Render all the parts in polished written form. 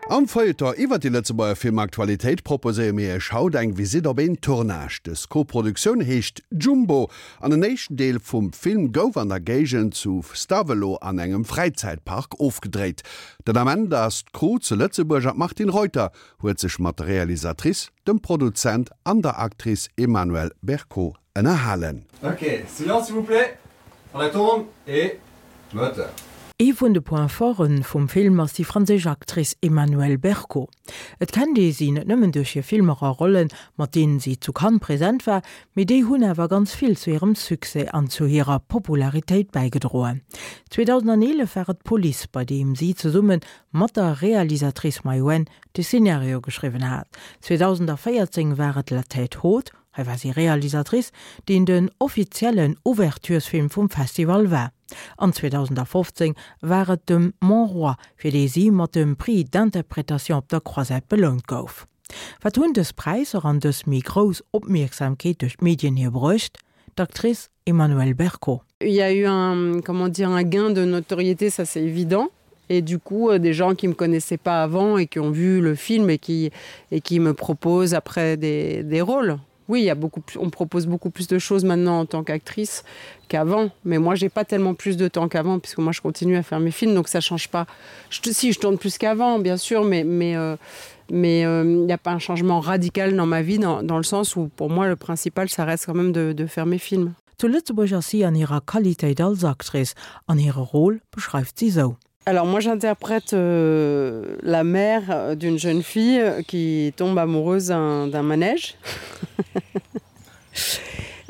Am Feuilleton iwwer déi Lëtzebuerger Filmaktualitéit proposéiere mir Iech haut eng Visitt op een Tournage. Dës Koproduktioun heescht Jumbo an en éischten Deel vum Film gouf an der Géigend zu Stavelot an engem Fräizäitpark ofgedréit. Den Ament ass d'Crew zu Lëtzebuerg an d'Martine Reuter huet sech mat der Realisatrice, dem Produzent an der Actrice Emmanuelle Bercot ënnerhalen. Ok, silence s'il vous plaît, on la tourne et moteur. Ee vun de Points forten vum Film ass déi franséisch Actrice Emmanuelle Bercot. Et kennt ee si net nëmmen duerch hir Filmer a Rollen, mat deenen si zu Cannes present war, mee déi hunn awer ganz vill zu hirem Succès an zu hirer Popularitéit bäigedroen. 2011 war et Police, bei deem si zesumme mat der Realisatrice Maïwenn de Szenario geschriwwen hat. 2014 war et La Tête haute, Hei war si Realisatrice, deen den offiziellen Ouverturesfilm vum Festival war. An 2015 war et de Mon Roi, fir dee si mat dem Prix d'interprétation op der Croisette belount gouf. Wat hunn dës Präisser an dës méi grouss Opmierksamkeet duerch d'Medien hir bruecht? D'Actrice Emmanuelle Bercot. Il y a eu un, comment dire, un gain de notoriété, ça c'est évident et du coup euh, des gens qui me connaissaient pas avant et qui ont vu le film et qui et qui me proposent après des, des rôles. Oui, il y a beaucoup plus, on propose beaucoup plus de choses maintenant en tant qu'actrice qu'avant mais moi j'ai pas tellement plus de temps qu'avant puisque moi je continue à faire mes films donc ça change pas je, si je tourne plus qu'avant bien sûr mais mais euh, mais il euh, n'y a pas un changement radical dans ma vie dans, dans le sens où pour moi le principal ça reste quand même de, de faire mes films. Zu Lëtzebuerg ass si an hirer Qualitéit als Actrice, an hire Rôle beschreift si sou. Alors moi j'interprète euh, la mère d'une jeune fille qui tombe amoureuse d'un manège.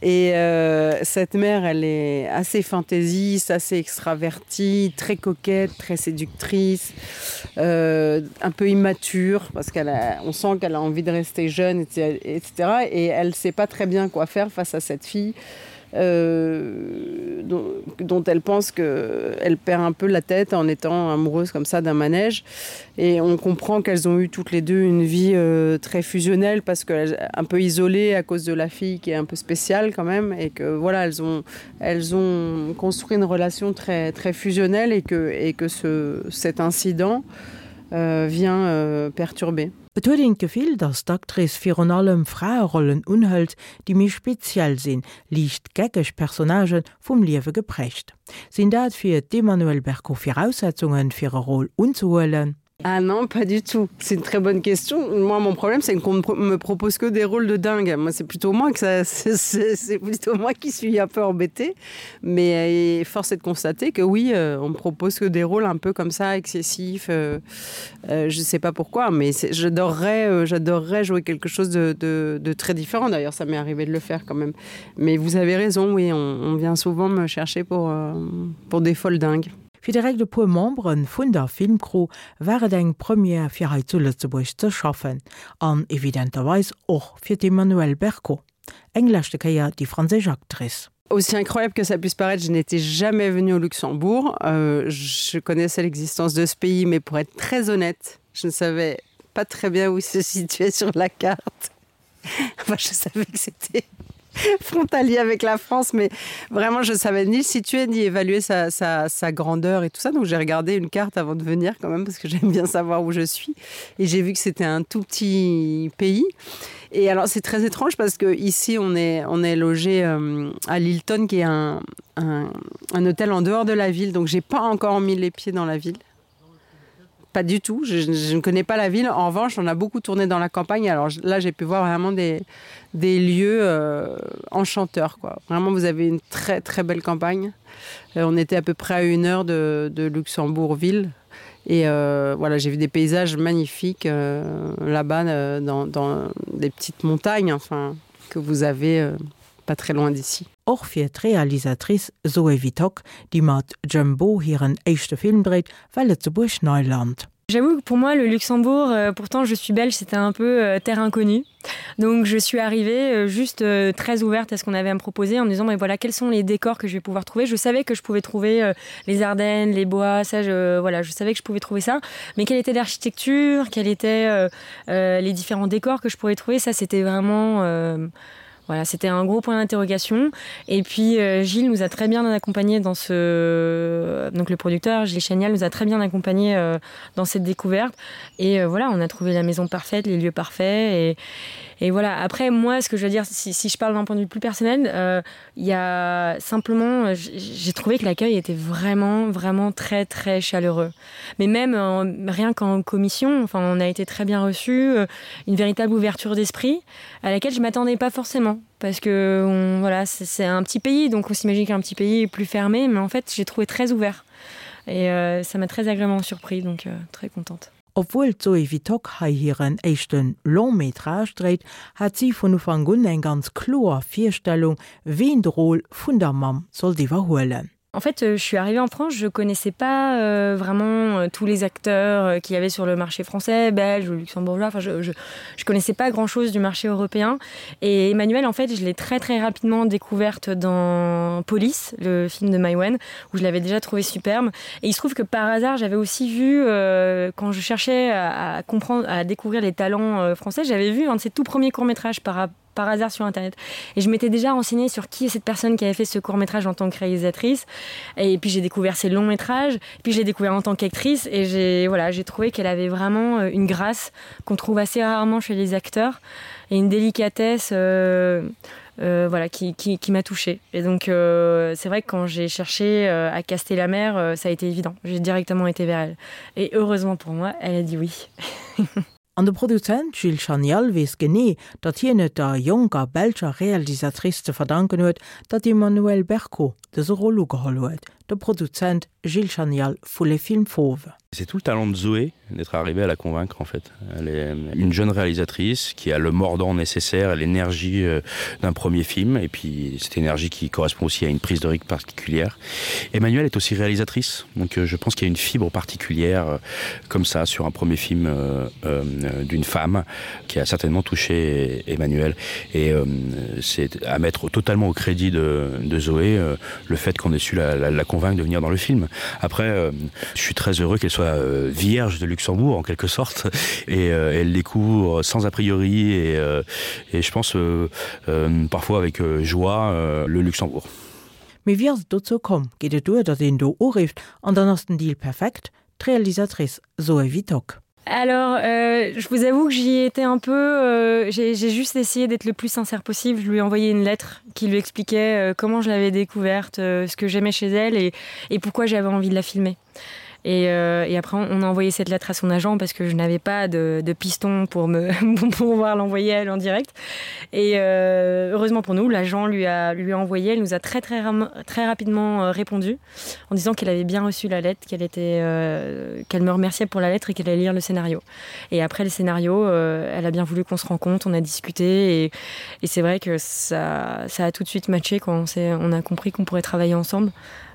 Et euh, cette mère, elle est assez fantaisiste, assez extravertie, très coquette, très séductrice, euh, un peu immature parce qu'elle on sent qu'elle a envie de rester jeune, etc. Et elle sait pas très bien quoi faire face à cette fille. Euh, dont, dont elle pense qu'elle perd un peu la tête en étant amoureuse comme ça d'un manège et on comprend qu'elles ont eu toutes les deux une vie euh, très fusionnelle parce qu'elles un peu isolée à cause de la fille qui est un peu spéciale quand même et que voilà elles ont elles ont construit une relation très très fusionnelle et que et que ce cet incident euh, vient euh, perturber. Et huet een d'Gefill, datt d'Actrice virun allem Fraerollen unhëlt, déi méi speziell sinn, liicht geckeg Personnagen, vum Liewe geprägt. Sinn dat fir d'Emmanuelle Bercot Viraussetzungen, fir e Rôle unzehuelen? Ah non, pas du tout. C'est une très bonne question. Moi, mon problème, c'est qu'on me propose que des rôles de dingue. Moi, c'est plutôt moi que ça, c'est plutôt moi qui suis un peu embêtée. Mais euh, force est de constater que oui, euh, on me propose que des rôles un peu comme ça, excessifs. Euh, euh, je sais pas pourquoi, mais j'adorerais euh, j'adorerais jouer quelque chose de, de, de très différent. D'ailleurs, ça m'est arrivé de le faire quand même. Mais vous avez raison, oui, on, on vient souvent me chercher pour, euh, pour des folles dingues. Fir direkt e puer Membere vun der Filmcrew war et eng Première fir hei zu Lëtzebuerg ze schaffen an evidenterweis och fir d'Emmanuelle Bercot, eng leschte Kéier déi franséisch Actrice. Aussi incroyable que ça puisse paraître, je n'étais jamais venue au Luxembourg. Euh, je connaissais l'existence de ce pays, mais pour être très honnête, je ne savais pas très bien où il se situait sur la carte. Enfin, je savais que c'était frontalier avec la France, mais vraiment je savais ni le situer ni évaluer sa, sa, sa grandeur et tout ça. Donc j'ai regardé une carte avant de venir quand même parce que j'aime bien savoir où je suis et j'ai vu que c'était un tout petit pays. Et alors c'est très étrange parce que ici on est, on est logé euh, à Lilton qui est un, un, un hôtel en dehors de la ville, donc j'ai pas encore mis les pieds dans la ville pas du tout je, je ne connais pas la ville en revanche on a beaucoup tourné dans la campagne alors là j'ai pu voir vraiment des des lieux euh, enchanteurs quoi vraiment vous avez une très très belle campagne euh, on était à peu près à une heure de, de luxembourgville et euh, voilà j'ai vu des paysages magnifiques euh, là bas euh, dans, dans des petites montagnes enfin que vous avez euh, pas très loin d'ici. Och fir d'Realisatrice Zoé Wittock, déi mat Jumbo hiren éischte Film dréit, war Lëtzebuerg Neiland. J'avoue que pour moi le Luxembourg, euh, pourtant je suis belge, c'était un peu euh, terre inconnue. Donc je suis arrivée euh, juste euh, très ouverte à ce qu'on avait à me proposer en me disant mais voilà quels sont les décors que je vais pouvoir trouver. Je savais que je pouvais trouver euh, les Ardennes, les bois, ça je, voilà, je savais que je pouvais trouver ça. Mais quelle était l'architecture, quels étaient euh, euh, les différents décors que je pourrais trouver, ça c'était vraiment euh, Voilà, c'était un gros point d'interrogation. Et puis euh, Gilles nous a très bien accompagné dans ce donc le producteur Gilles Chanial nous a très bien accompagné euh, dans cette découverte. Et euh, voilà, on a trouvé la maison parfaite, les lieux parfaits et, et voilà après moi ce que je veux dire si, si je parle d'un point de vue plus personnel euh, il euh, ya simplement j'ai trouvé que l'accueil était vraiment vraiment très très chaleureux mais même en, rien qu'en commission enfin on a été très bien reçu euh, une véritable ouverture d'esprit à laquelle je m'attendais pas forcément parce que on, voilà c'est un petit pays donc on s'imagine qu'un petit pays est plus fermé mais en fait j'ai trouvé très ouvert et euh, ça m'a très agréablement surpris donc euh, très contente. Obwuel d'Zoé Wittock hei hiren éischte Long-métrage dréit, hat si vun Ufank un eng ganz kloer Virstellung, ween de Rôle vun der Mamm sollt iwwerhuelen. En fait, euh, je suis arrivée en France, je connaissais pas euh, vraiment euh, tous les acteurs euh, qu'il y avait sur le marché français, belge ou luxembourgeois. Enfin, je, je, je connaissais pas grand chose du marché européen. Et Emmanuel, en fait, je l'ai très très rapidement découverte dans Police, le film de Maïwen, où je l'avais déjà trouvé superbe. Et il se trouve que par hasard, j'avais aussi vu, euh, quand je cherchais à, à comprendre, à découvrir les talents euh, français, j'avais vu un de ses tout premiers courts-métrages par rapport par hasard sur internet et je m'étais déjà renseignée sur qui est cette personne qui avait fait ce court métrage en tant que réalisatrice et puis j'ai découvert ses longs métrages puis j'ai découvert en tant qu'actrice et j'ai voilà j'ai trouvé qu'elle avait vraiment euh, une grâce qu'on trouve assez rarement chez les acteurs et une délicatesse euh, euh, voilà qui, qui, qui m'a touchée et donc euh, c'est vrai que quand j'ai cherché euh, à caster la mer euh, ça a été évident j'ai directement été vers elle et heureusement pour moi elle a dit oui An de Produzent Gilles Chanial weess genee, datt hien et der jonker belscher Realisatrice ze verdanken huet, datt d'Emmanuelle Bercot dëse Rôle ugeholl huet. De Produzent Gilles Chanial vu Les Films Fauves. C'est tout le talent de Zoé d'être arrivé à la convaincre en fait. Elle est une jeune réalisatrice qui a le mordant nécessaire et l'énergie euh, d'un premier film et puis cette énergie qui correspond aussi à une prise de rythme particulière. Emmanuel est aussi réalisatrice, donc euh, je pense qu'il y a une fibre particulière euh, comme ça sur un premier film euh, euh, d'une femme qui a certainement touché Emmanuel et euh, c'est à mettre totalement au crédit de, de Zoé euh, le fait qu'on ait su la, la, la convaincre de venir dans le film. Après euh, je suis très heureux qu'elle soit euh, vierge de Luxembourg en quelque sorte et euh, elle découvre sans a priori et, euh, et je pense euh, euh, parfois avec euh, joie euh, le Luxembourg. Mee wéi ass et dozou komm? Geet et duer, datt een do urifft an dann ass den Deal perfekt? D'Realisatrice Zoé Wittock. Alors euh, je vous avoue que j'y étais un peu euh, j'ai juste essayé d'être le plus sincère possible. Je lui ai envoyé une lettre qui lui expliquait euh, comment je l'avais découverte, euh, ce que j'aimais chez elle et, et pourquoi j'avais envie de la filmer. Et, euh, et après on a envoyé cette lettre à son agent parce que je n'avais pas de, de piston pour me pour pouvoir l'envoyer elle en direct. Et euh, heureusement pour nous, l'agent lui a lui a envoyé, elle nous a très très très rapidement euh, répondu en disant qu'elle avait bien reçu la lettre, qu'elle était euh, qu'elle me remerciait pour la lettre et qu'elle allait lire le scénario. Et après le scénario, euh, elle a bien voulu qu'on se rencontre, on a discuté et, et c'est vrai que ça, ça a tout de suite matché quand on, on a compris qu'on pourrait travailler ensemble.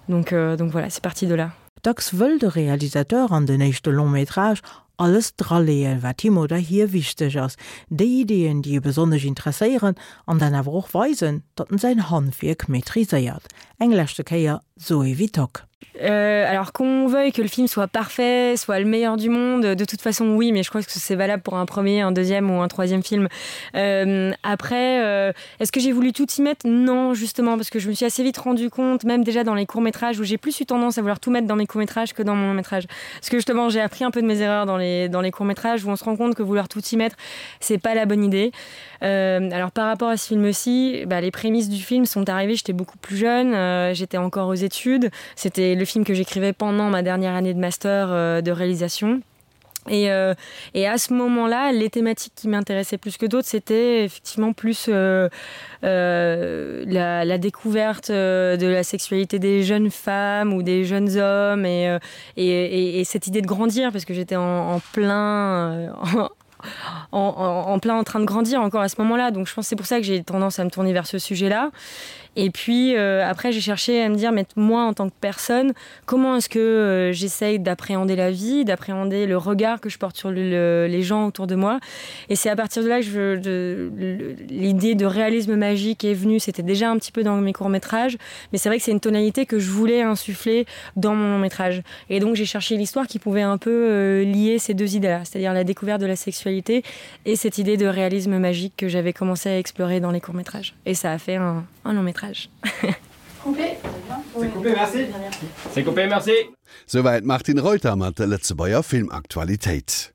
Donc, euh, donc voilà, c'est parti de là. Dacks wëll de Realisateur an den éischte Long-métrage alles draleeën, wat him oder hir wichteg ass, déi Ideeën, déi e besonnesch interesséieren, an dann awer och weisen, datt en säin Handwierk maîtriséiert. Eng leschte Kéier Zoé Wittock. Euh, alors qu'on veuille que le film soit parfait, soit le meilleur du monde, de toute façon oui, mais je crois que c'est valable pour un premier, un deuxième ou un troisième film. Euh, après, euh, est-ce que j'ai voulu tout y mettre Non, justement, parce que je me suis assez vite rendu compte, même déjà dans les courts-métrages où j'ai plus eu tendance à vouloir tout mettre dans mes courts-métrages que dans mon long-métrage. Parce que justement, j'ai appris un peu de mes erreurs dans les, dans les courts-métrages où on se rend compte que vouloir tout y mettre, c'est pas la bonne idée. Euh, alors par rapport à ce film-ci, bah, les prémices du film sont arrivées, j'étais beaucoup plus jeune, euh, j'étais encore aux études, c'était le film que j'écrivais pendant ma dernière année de master euh, de réalisation. Et, euh, et à ce moment-là, les thématiques qui m'intéressaient plus que d'autres, c'était effectivement plus euh, euh, la, la découverte euh, de la sexualité des jeunes femmes ou des jeunes hommes et, euh, et, et, et cette idée de grandir parce que j'étais en, en plein euh, en, en, en, en plein en train de grandir encore à ce moment-là. Donc je pense c'est pour ça que j'ai tendance à me tourner vers ce sujet-là. Et puis euh, après j'ai cherché à me dire mais moi en tant que personne, comment est-ce que euh, j'essaye d'appréhender la vie, d'appréhender le regard que je porte sur le, le, les gens autour de moi. Et c'est à partir de là que l'idée de réalisme magique est venue, c'était déjà un petit peu dans mes courts-métrages, mais c'est vrai que c'est une tonalité que je voulais insuffler dans mon long métrage. Et donc j'ai cherché l'histoire qui pouvait un peu euh, lier ces deux idées là, c'est-à-dire la découverte de la sexualité et cette idée de réalisme magique que j'avais commencé à explorer dans les courts-métrages. Et ça a fait un, un long métrage. Coupé. C'est coupé, merci. C'est coupé, merci. Souwäit d'Martine Reuter mat der Lëtzebuerger Filmaktualitéit.